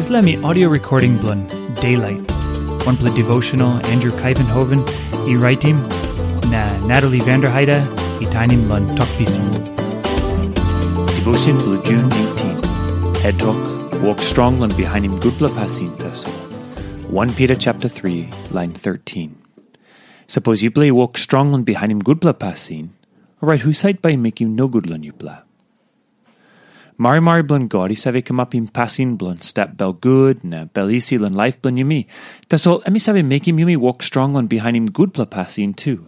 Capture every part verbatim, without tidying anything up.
Dispela mi audio recording bilong Daylight, wanpela devotional Andrew Kaivenhoven i raitim, na Natalie Vanderheide i tainim long Tok Pisin. Devotion bilong June eighteen. Head Tok, Wok Strong long Bihainim Gutpela Pasin Tasol. One Peter chapter three, line thirteen. Sapos yupela i wok strong long bihainim gutpela pasin, orait husat bai i mekim nogut long yupela? Marimari bilong God i save kamapim pasin bilong stap bel gut na bel isi long laip bilong yumi. Tasol em i save mekim yumi wok strong long bihainim gutpela pasin tu.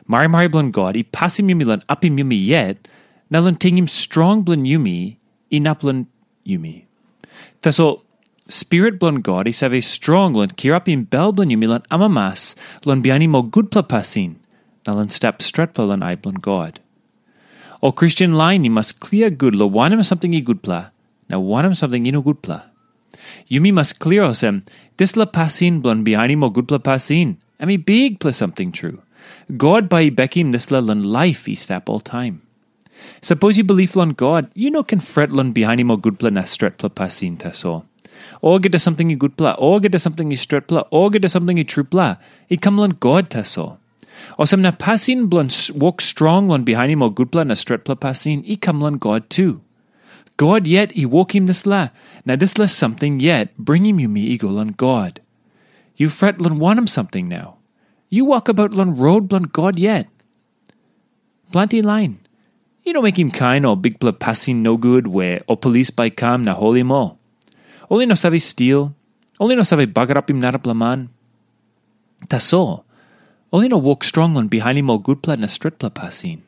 Marimari bilong God i pasim yumi long apim yumi yet, na long tingim strong bilong yumi inap long yumi. Tasol Spirit bilong God i save strong long kirapim bel bilong yumi long amamas, long bihainim ol gutpela pasin, na long stap stretpela long ai bilong God. Ol Kristen lain i mas klia gut long wanem samting i gutpela, na wanem samting i no gutpela. Yumi mas klia olsem, dispela pasin bilong bihainim ol gutpela pasin, em i bikpela samting tru. God bai i bekim dispela long laip i stap oltaim. Sapos yu bilip long God, yu no ken fret long bihainim ol gutpela na stretpela pasin tasol. Olgeta samting i gutpela, olgeta samting i stretpela, olgeta samting i trupela, i kam long God tasol. Olsem na pasin bilong wok strong long bihainim ol gutpela na stretpela pasin i kam long God tu. God yet i wokim dispela, na dispela samting yet bringim yumi i go long God. Yu fret long wanem samting nau? Yu wokabaut long rot bilong God yet. Planti lain i no mekim kain ol bikpela pasin nogut we ol polis bai i kam na holim ol. Ol i no save stil, ol i no save bagarapim narapela man. Tasol, ol i no wok strong long bihainim ol gutpela na stretpela pasin.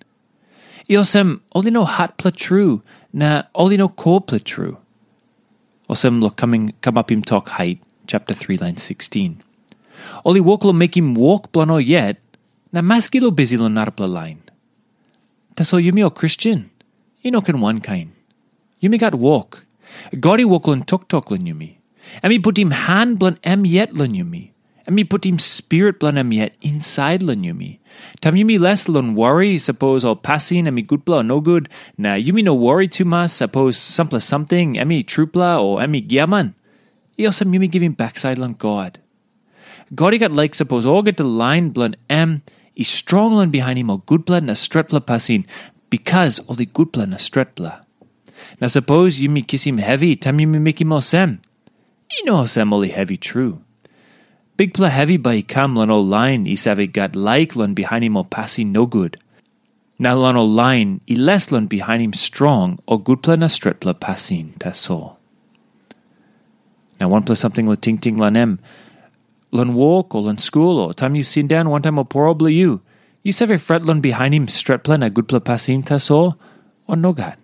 I olsem, ol i no hatpela tru, na ol i no kolpela tru. Olsem long kamapim tok hait, chapter three, line sixteen. Ol i wok long mekim wok bilong ol yet, na maski long bisi long narapela lain. Tasol yumi ol Kristen, i no ken wankain. Yumi gat wok. God i wok long toktok long yumi. Em i putim han bilong em yet long yumi. Em i putim spirit bilong em yet insait long yumi. Taim yumi les long wori, sapos ol pasin em i gutpela o nogut, na yumi no wori tumas, sapos sampela samting em i trupela o em i giaman, i olsem yumi givim baksait long God. God i gat laik sapos olgeta lain bilong em i strong long bihainim ol gutpela na stretpela pasin, bikas ol i gutpela na stretpela. Na sapos yumi kisim hevi taim yumi mekim olsem, i no olsem ol i hevi tru. Bikpela hevi bai i kam long ol lain i save gat laik long bihainim ol pasin nogut, na long ol lain i les long bihainim strong o gutpela na stretpela pasin tasol. Na wanpela samting long tingting long em, long wok o long skul o taim yu sindaun wantaim ol poro bilong yu, yu save fret long bihainim stretpela na gutpela pasin tasol, o nogat?